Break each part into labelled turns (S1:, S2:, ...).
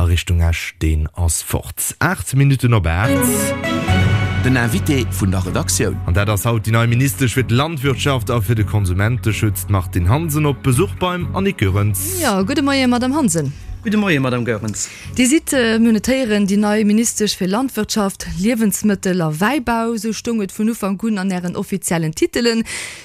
S1: Richtung Esch, deen ass fort. 8 Minutten op 8.
S2: Den Invité vun der Redaktioun.
S1: An dat ass haut déi nei Ministesch fir d'Landwirtschaft a fir de Konsumenteschutz, d'Martine Hansen, op Besuch beim Annick Goerens.
S3: Jo, gudde Moie Madame Hansen.
S4: Gudde Moie Madame Goerens.
S3: Dir sidd, mir hunn et héieren, déi nei Ministesch fir Landwirtschaft, Liewensmëttel a Wäibau. Esou stoung et vun Ufank un an Ären offiziellen Titelen.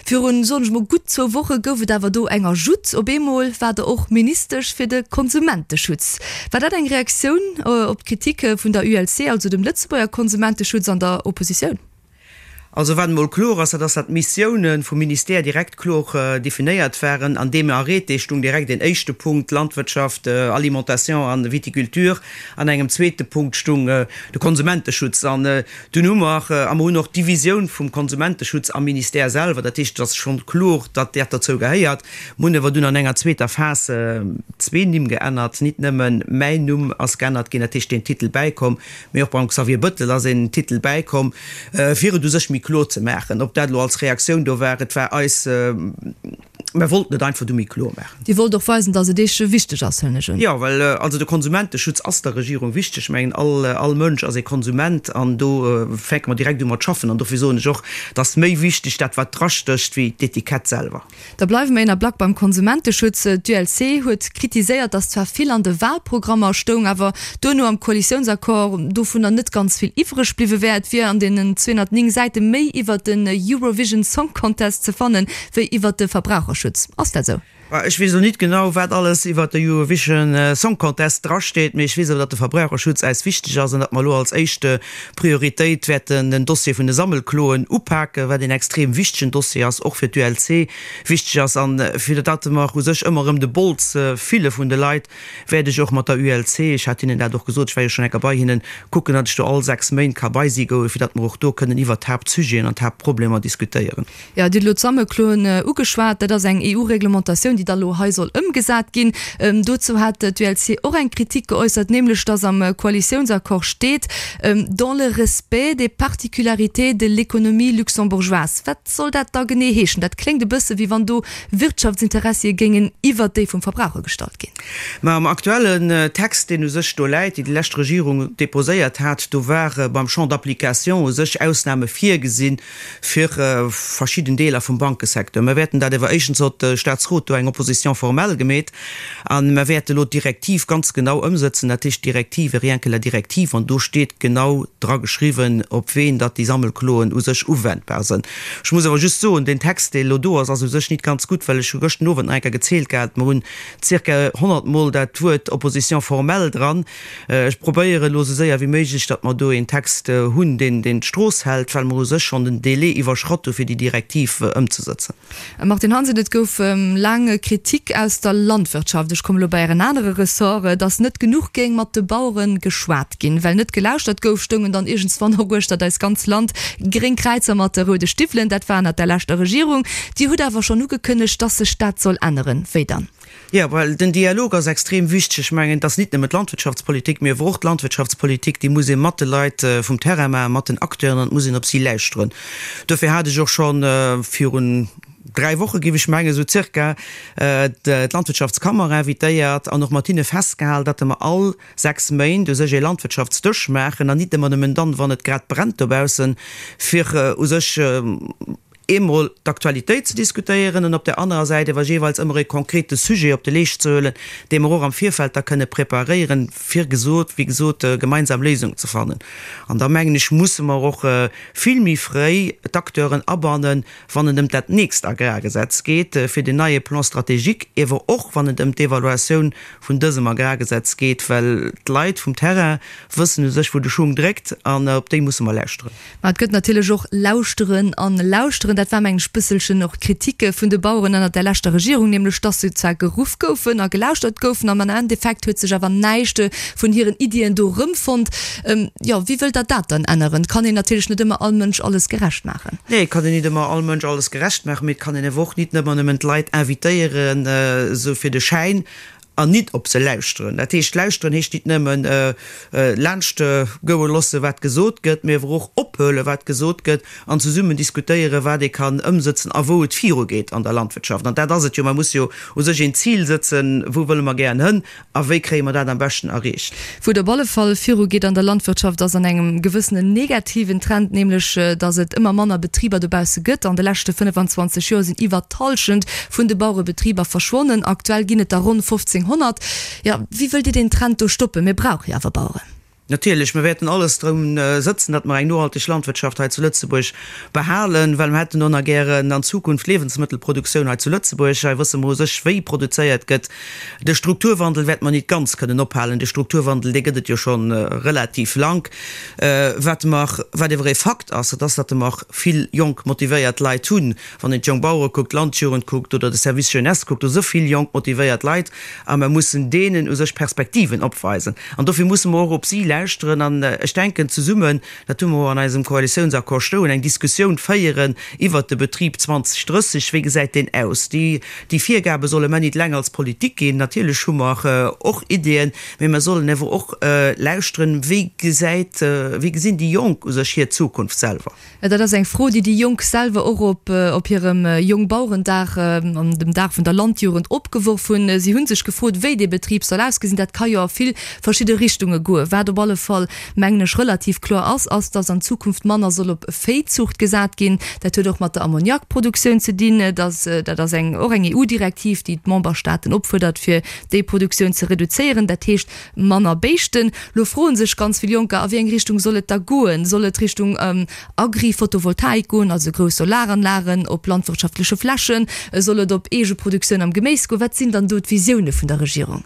S3: Virun, soen ech mol, gutt zwou Woche gouf et awer do eng Ajoute. Op eemol war Der och Ministesch fir de Konsumenteschutz. War dat eng Reaktioun op d'Kritik vun der ULC, also dem Lëtzebuerger Konsumenteschutz an der Oppositioun?
S4: Also wat emol kloer ass, dat ass, datt d'Missioune vum Ministère direkt kloer definéiert waren. An deem Arrêté stung direkt een éischte Punkt, Landwirtschaft, Alimentation an Viticulture. An engem zweete Punkt stung de Konsumenteschutz. An Dunn hu mer, a mer hunn och d'Divisioun vum Konsumenteschutz am Ministère selwer, dat heescht, et ass schonn kloer, datt dat dozou gehéiert. Mer hunn awer dunn an enger zweeter Phas zwee Nimm geännert, nit nëmme mäin Numm ass geännert ginn, dat heescht deen Titel bäikomm, mee och beim Xavier Bettel ass een Titel bäikomm, fir et u sech méi kloer ze maachen. Ob dat elo als Reaktioun do war, et war eis, Mer wollten et einfach du méi kloer maachen.
S3: Dir wollt och weisen, datt et Iech wichteg ass, huelen ech un.
S4: Jo, well also de Konsumenteschutz ass der Regierung wichteg. Ech mengen, all, all Mënsch ass ee Konsument an do fänke mer direkt u mat schaffen. An dofir soen ech och, et ass méi wichteg dat, wat drastécht, wéi d'Etikett selwer.
S3: Da bleiwe mer een Ablack beim Konsumenteschutz. D'ULC huet kritiséiert, datt zwar vill an de Wahlprogrammer stoung, awer duerno am Koalitiounsaccord dovunner net ganz vill iwwreg bliwwe wär. Et wier an deenen 209 Säite méi iwwert den Eurovision Song Contest ze fannen, wéi iwwert de Verbraucherschutz. Ass dat esou?
S4: Ech weess elo nit genau, wat alles iwwert de Eurovision Song Contest drasteet, mee ech weess awer, datt de Verbraucherschutz äis wichteg ass an datt mer elo als éischt Prioritéit wäerten den Dossier vun de Sammelkloen upaken, wat een extrem wichtegen Dossier ass, och fir d'ULC wichteg ass. An fir datt mer u sech ëmmer erëm de Bols fille vun de Leit, wäert ech och mat der ULC, ech hat hinnen dat och gesot, ech war jo schonn eng Kéier bei hinnen, kucken, datt ech do all 6 Méint ka bei si goen, fir datt mer och do kënnen iwwert d'Haaptsujeten an d'Haaptproblemer diskutéieren.
S3: Jo, Dir hutt elo d'Sammelkloen ugeschwat. Dat ass eng EU-Reglementatioun, déi da lo hei soll ëmgesat ginn. Dozou hat d'ULC och eng Kritik geäussert, nämlech datt am Koalitiounsaccord steet, dans le respect des particularités de l'économie luxembourgeoise. Wat soll dat da genee heeschen? Dat kléngt e bësse wéi wann do Wirtschaftsinteressie géingen iwwert déi vum Verbraucher gestallt ginn.
S4: Mä am aktuellen Text, deen u sech do läit, deen déi lescht Regierung déposéiert hat, do ware beim Champ d'application u sech Ausnahme virgesinn fir verschidden Deeler vum Bankesecteur. Mer wäerten dat ewer, éischtens huet de Statsrot do eng Opposition formelle gemeet, a mer wäerte elo d'Direktiv ganz genau ëmsëtzen, dat heescht d'Direktive, rien que la directive, an do steet genau dra geschriwwen, op ween datt déi Sammelkloen u sech uwendbar sënn. Ech muss awer just soen, deen Text, dee elo do ass, ass u sech nit ganz gutt, well ech hu gëschten Owend nach eng Kéier gezielt gehat, mer hunn zirka 100 Mol dat Wuert Opposition formelle dran. Ech probéieren elo esou séier wéi méiglech, datt mer do een Text hunn, deen deen d'Strooss hält, well mer u sech schonn den Délai iwwerschratt hu fir déi Direktiv ëmzesëtzen.
S3: Martine Hansen, Et gouf laang Kritik aus der Landwirtschaft, ech kommen elo bei Ären anere Ressort, datt net genuch géing mat de Bauere geschwat ginn. Well net gelauschtert gouf, stoungen dann iergendswann och uechtert eist ganz Land gréng Kräizer mat roude Stiwwelen. Dat war ënnert der leschter Regierung. Dir hutt awer schonn ugekënnegt, datt sech dat soll änneren. Wéi dann?
S4: Jo, well den Dialog ass extrem wichteg. Ech mengen, et ass nit nëmmen d'Landwirtschaftspolitik, mee awer och d'Landwirtschaftspolitik, déi muss ee mat de Leit vum Terrain maachen, mat den Acteuren, an et muss een op si lauschteren. Dofir hat ech och scho virun dräi Woche, géif ech mengen, esou zirka, d'Landwirtschaftskammer invitéiert an och mat hinne festgehalen, datt mer all sechs Méint u sech ee Landwirtschaftsdësch maachen an nit ëmmer nëmmen dann, wann et grad brennt dobaussen, fir u sech eemol d'Aktualitéit ze diskutéieren an op där anerer Säit awer jeeweils ëmmer e konkrete Sujet op de Leescht ze huelen, dee mer och am Virfeld da kënne preparéieren, fir gesot, wéi gesot, gemeinsam Léisungen ze fannen. An da mengen ech, musse mer och vill méi fréi d'Acteuren abannen, wann et ëm dat nächst Agrargesetz geet, fir den neie Plan stratégique, ewer och wann et ëm d'Evaluatioun vun dësem Agrargesetz geet, well d'Leit vum Terrain wëssen u sech, wou de Schung dréckt, an op déi musse mer lauschteren.
S3: Mä et gëtt natierlech och lauschteren an lauschteren. Dat war, mengen ech, bësselchen och d'Kritik vun de Baueren ënnert der leschter Regierung, nämlech dass se zwar geruff goufen a gelauschtert goufen, am Endeffekt huet sech awer näischt vun hiren Iddien do erëmfonnt. Jo, wéi wëllt Der dat dann änneren? Et kann een natierlech net ëmmer all Mënsch alles gerecht maachen.
S4: Nee, et kann een nit ëmmer all Mënsch alles gerecht maachen, mee et kann een awer och nit ëmmer nëmmen d'Leit invitéieren, esou fir de Schäin. an nit op se lauschteren. Dat heescht, lauschteren heescht nit nëmmen laanscht goe loosse wat gesot gëtt, mee awer och ophuele wat gesot gëtt an zesummen diskutéieren, wat ee kann ëmsëtzen a wou et virugeet an der Landwirtschaft. An dat ass et jo, mer musse jo u sech een Zil sëtzen, wou wëlle mer gären hënn A wéi kréie mer dat am beschten erreecht?
S3: Wou et op alle Fall virugeet an der Landwirtschaft, ass an engem gewëssenen negativen Trend, nämlech datt et ëmmer manner Betriber dobausse gëtt. An de leschte 25 Joer sinn iwwer d'Hallschent vun de Bauerebetriber verschwonnen. Aktuell ginn et der ronn 1.500. Jo, wéi wëllt Dir deen Trend do stoppen? Mir brauche jo awer Baueren.
S4: Natierlech, mir wäerten alles drun sëtzen, datt mer eng nohalteg Landwirtschaft hei zu Lëtzebuerg behalen, well mir hätten och nach gären an Zukunft Liewensmëttelproduktioun hei zu Lëtzebuerg. Hei wësse mer u sech, wéi produzéiert gëtt. De Strukturwandel wäerte mer nit ganz kënnen ophalen. De Strukturwandel, dee gëtt et jo scho relativ lank. Wat mer, wat ewer ee Fakt ass, dat ass, datt mer vill jonk motivéiert Leit hunn. Wann een d'Jongbauere kuckt, d'Landjugend kuckt oder de Service Jeunesse kuckt, do si vill jonk motivéiert Leit a mer mussen deenen u sech Perspektiven opweisen. An dofir musse mer och op si lauschteren an ech denken zesummen, dat hu mer och an eisem Koalitiounsaccord stoen, eng Diskussioun féieren iwwert de Betrib 2030, wéi gesäit deen aus? Déi Virgabe solle mer nit eleng als Politik ginn. Natierlech hu mer och Ideeën, mee mer sollen ewer och lauschteren, wéi gesäit, wéi gesinn déi Jonk u sech hir Zukunft selwer?
S3: Dat ass eng Fro, déi déi Jonk selwer och op op hirem Jongbauerendag an dem Dag vun der Landjugend opgeworf hunn. Si hu sech gefrot, wéi dee Betrib soll ausgesinn. Dat ka jo a vill verschidde Richtunge goen. Wat op alle Fall, mengen ech, relativ kloer ass, ass, dass an Zukunft manner soll op Véizuucht gesat ginn. Dat huet och mat der Ammoniakproduktioun ze dinn. Dat ass eng och eng EU-Direktiv, déi d'Memberstaaten opfuerdert, fir déi Produktioun ze reduzéieren. Dat heescht, Manner Béischten. Lo froen sech ganz vill Jonker, a wéi eng Richtung soll et da goen? Soll et Richtung Agri-Photovoltaik goen, also grouss Solaranlagen op landwirtschaftleche Flächen? Soll et op Eegeproduktioun am Geméis goen? Wat sinn dann do d'Visioune vun der Regierung?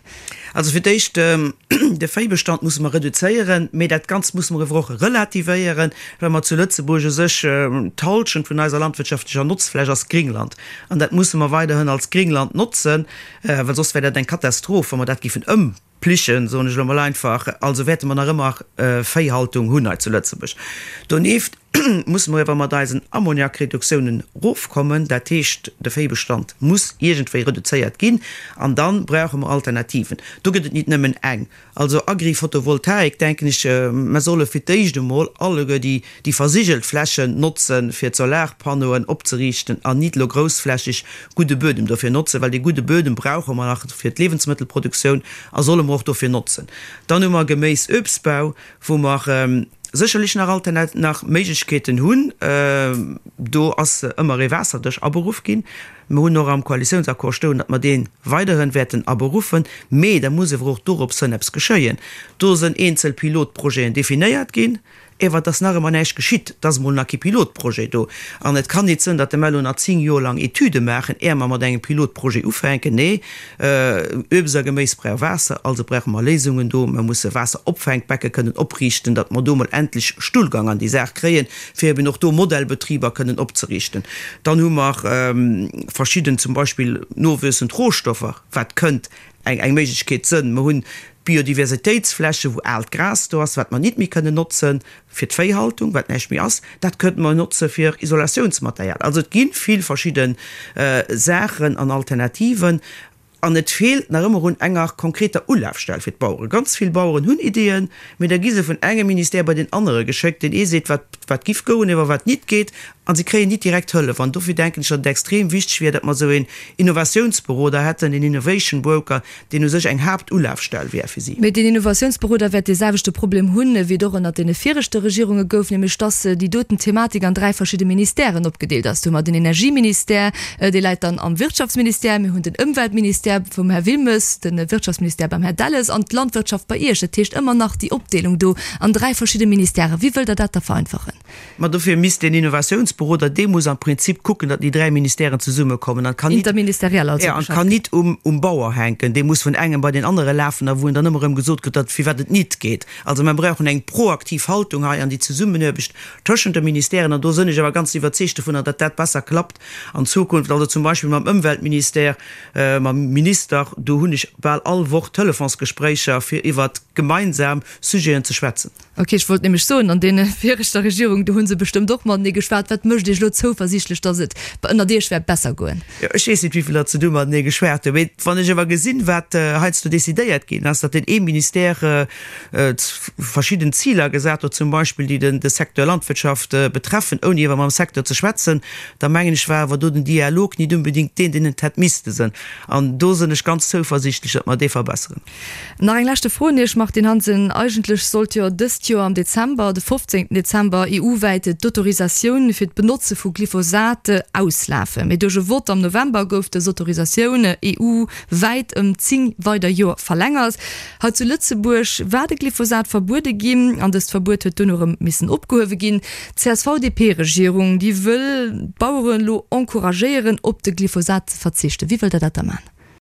S4: Also fir d'éischt, de Véibestand musse mer reduzéieren, mee dat Ganzt musse mer ewer och relativéieren, well mer zu Lëtzebuerg u sech d'Halschent vun eiser landwirtschaftlecher Notzfläch ass Gringland an dat musse mer weiderhin als Gringland notzen. Well soss wär dat eng Katastroph, wa mer dat géifen ëmplichen, soen ech elo mol einfach. Also wäerte mer nach ëmmer Véihaltung hunn hei zu Lëtzebuerg. Donieft musse mer ewer mat eisen Ammoniakreduktiounen erofkommen. Dat heescht, de Véibestand muss iergendwéi reduzéiert ginn. An da brauche mer Alternativen. Do gëtt et nit nëmmen eng. Also Agri-Photovoltaik, denken ech, mer solle fir d'éischt emol alleguer déi, déi versigelt Flächen notzen, fir d'Solarpannoen opzeriichten an nit elo groussflächeg gudde Buedem dofir notzen, well dee gudde Buedem brauche mer nach fir d'Liewensmëttelproduktioun a solle mer och dofir notzen. Dann hu mer Geméis-Uebstbau, wou mer sécherlech nach Alternat-, nach Méiglechkeeten hunn. Do ass ëmmer ee Waasserdësch aberuff ginn. Mer hunn och am Koalitiounsaccord stoen, datt mer dee weiderhin wäerten aberuffen, mee da muss ewer och dorops hënn eppes geschéien. Do sënn eenzel Pilotprojeten definéiert ginn, ewer et ass nach ëmmer näischt geschitt. Et ass emol nach kee Pilotprojet do. An et kann nit sënn, datt mer elo nach 10 Joer lang Etüde maachen, är mer mat engem Pilotprojet ufänken. Nee, Uebst a Geméis brauch Waasser, also brauche mer Léisungen do. Mer musse Waasseropfänkbecke kënnen opriichten, datt mer do emol endlech Stullgang an déi Saach kréien, fir eben och do Modellbetriber kënnen opzeriichten. Dann hu mer verschidden, zum Beispill nowuessend Rohstoffer, wat kënnt eng eng Méiglechkeet sënn. Mer hunn d'Biodiversitéitsfläche wou aalt Gras do ass, wat mer nit méi kënnen notzen fir d'Véihaltung, wat näischt méi ass, dat kënnte mer notze fir Isolatiounsmaterial. Also et gi vill verschidde Saachen an Alternativen. An et feelt nach ëmmer un enger konkreter Ulafstell fir d'Baueren. Ganz vill Baueren hunn Ideeën, mee da gi se vun engem Ministère bei deen anere geschéckt. Deen ee seet, wat, wat giff goen, iwwer wat nit geet, a se kréien nit direkt Hëllef. An dofir denken ech, datt et extrem wichteg wier, datt mer esou een Innovatiounsberoder hätten, een Innovation Broker, deen u sech eng Haaptulafstell wär fir si.
S3: Mee deen Innovatiounsberoder wäert dee selwechte Problem hunn, wéi et och ënnert deene viregte Regierunge gouf, nämlech dass déi doten Thematik an 3 verschidde Ministèren opgedeelt ass. Do hu mer den Energieministère, dee läit dann am Wirtschaftsministère, mir hunn den Ëmweltministère vum Här Wilmes, de Wirtschaftsministère beim Här Delles an d'Landwirtschaft bei Iech. Dat heescht ëmmer nach déi Opdeelung do an 3 verschidde Ministèren. Wéi wëllt Der dat da vereinfachen?
S4: Ma dofir misst deen Innovatiounsberoder, dee muss am Prinzip kucken, datt déi 3 Ministèren zesummekommen an kann nit,
S3: Interministeriell also
S4: ja, an kann nit um, um Bauer hänken. Dee muss vun engem bei deen anere lafen a wou en dann ëmmer erëm gesot kritt, datt firwat et nit geet. Also mer brauchen eng proaktiv Haltung hei an déi Zesummenaarbecht tëschent de Ministèren an do sënn ech awer ganz iwwerzeegt dovunner, datt dat besser klappt an Zukunft. Also zum Beispill mam Ëmweltministère, mam Minister, do hunn ech bal all Woch Telefonsgespréicher fir iwwert. gemeinsam Sujeten ze schwätzen.
S3: Ok, ech wollt nämlech soen, an deene viregter Regierung, do hu se bestëmmt och matenee geschwat. Wat mécht Iech elo zouversiichtlech, datt et ënnert Iech wäert besser goen?
S4: Jo, ech weess net, wéi vill datt se do matenee geschwat hunn. Mee wann ech awer gesinn, wat heiansdo decidéiert ginn ass, datt deen ee Ministère verschidden Ziler gesat huet, zum Beispill déi de Secteur Landwirtschaft betreffen, ouni awer mam Secteur ze schwätzen, da mengen ech, war awer do den Dialog nit unbedingt deen, deen et hätt misste sinn. An do sinn ech ganz zouversiichtlech, datt mer dee verbesseren.
S3: Nach eng leschte Fro un Iech, Martine Hansen. Eigentlech sollt jo dëst Joer am Dezember, de 15 Dezember, EU-wäit d'Autorisatioun fir d'Benotze vu Glyphosat auslafen. Mee duerch e Vott am November gouf dës Autorisatioun EU-wäit ëm 10 weider Joer verlängert. Hei zu Lëtzebuerg war de Glyphosat verbuede ginn an dëst Verbuet huet duerno erëm missen opgehuewe ginn. D'CSV-DP-Regierung, déi wëll d'Baueren elo encouragéieren, op de Glyphosat ze verzichten. Wéi wëllt Der dat da maachen?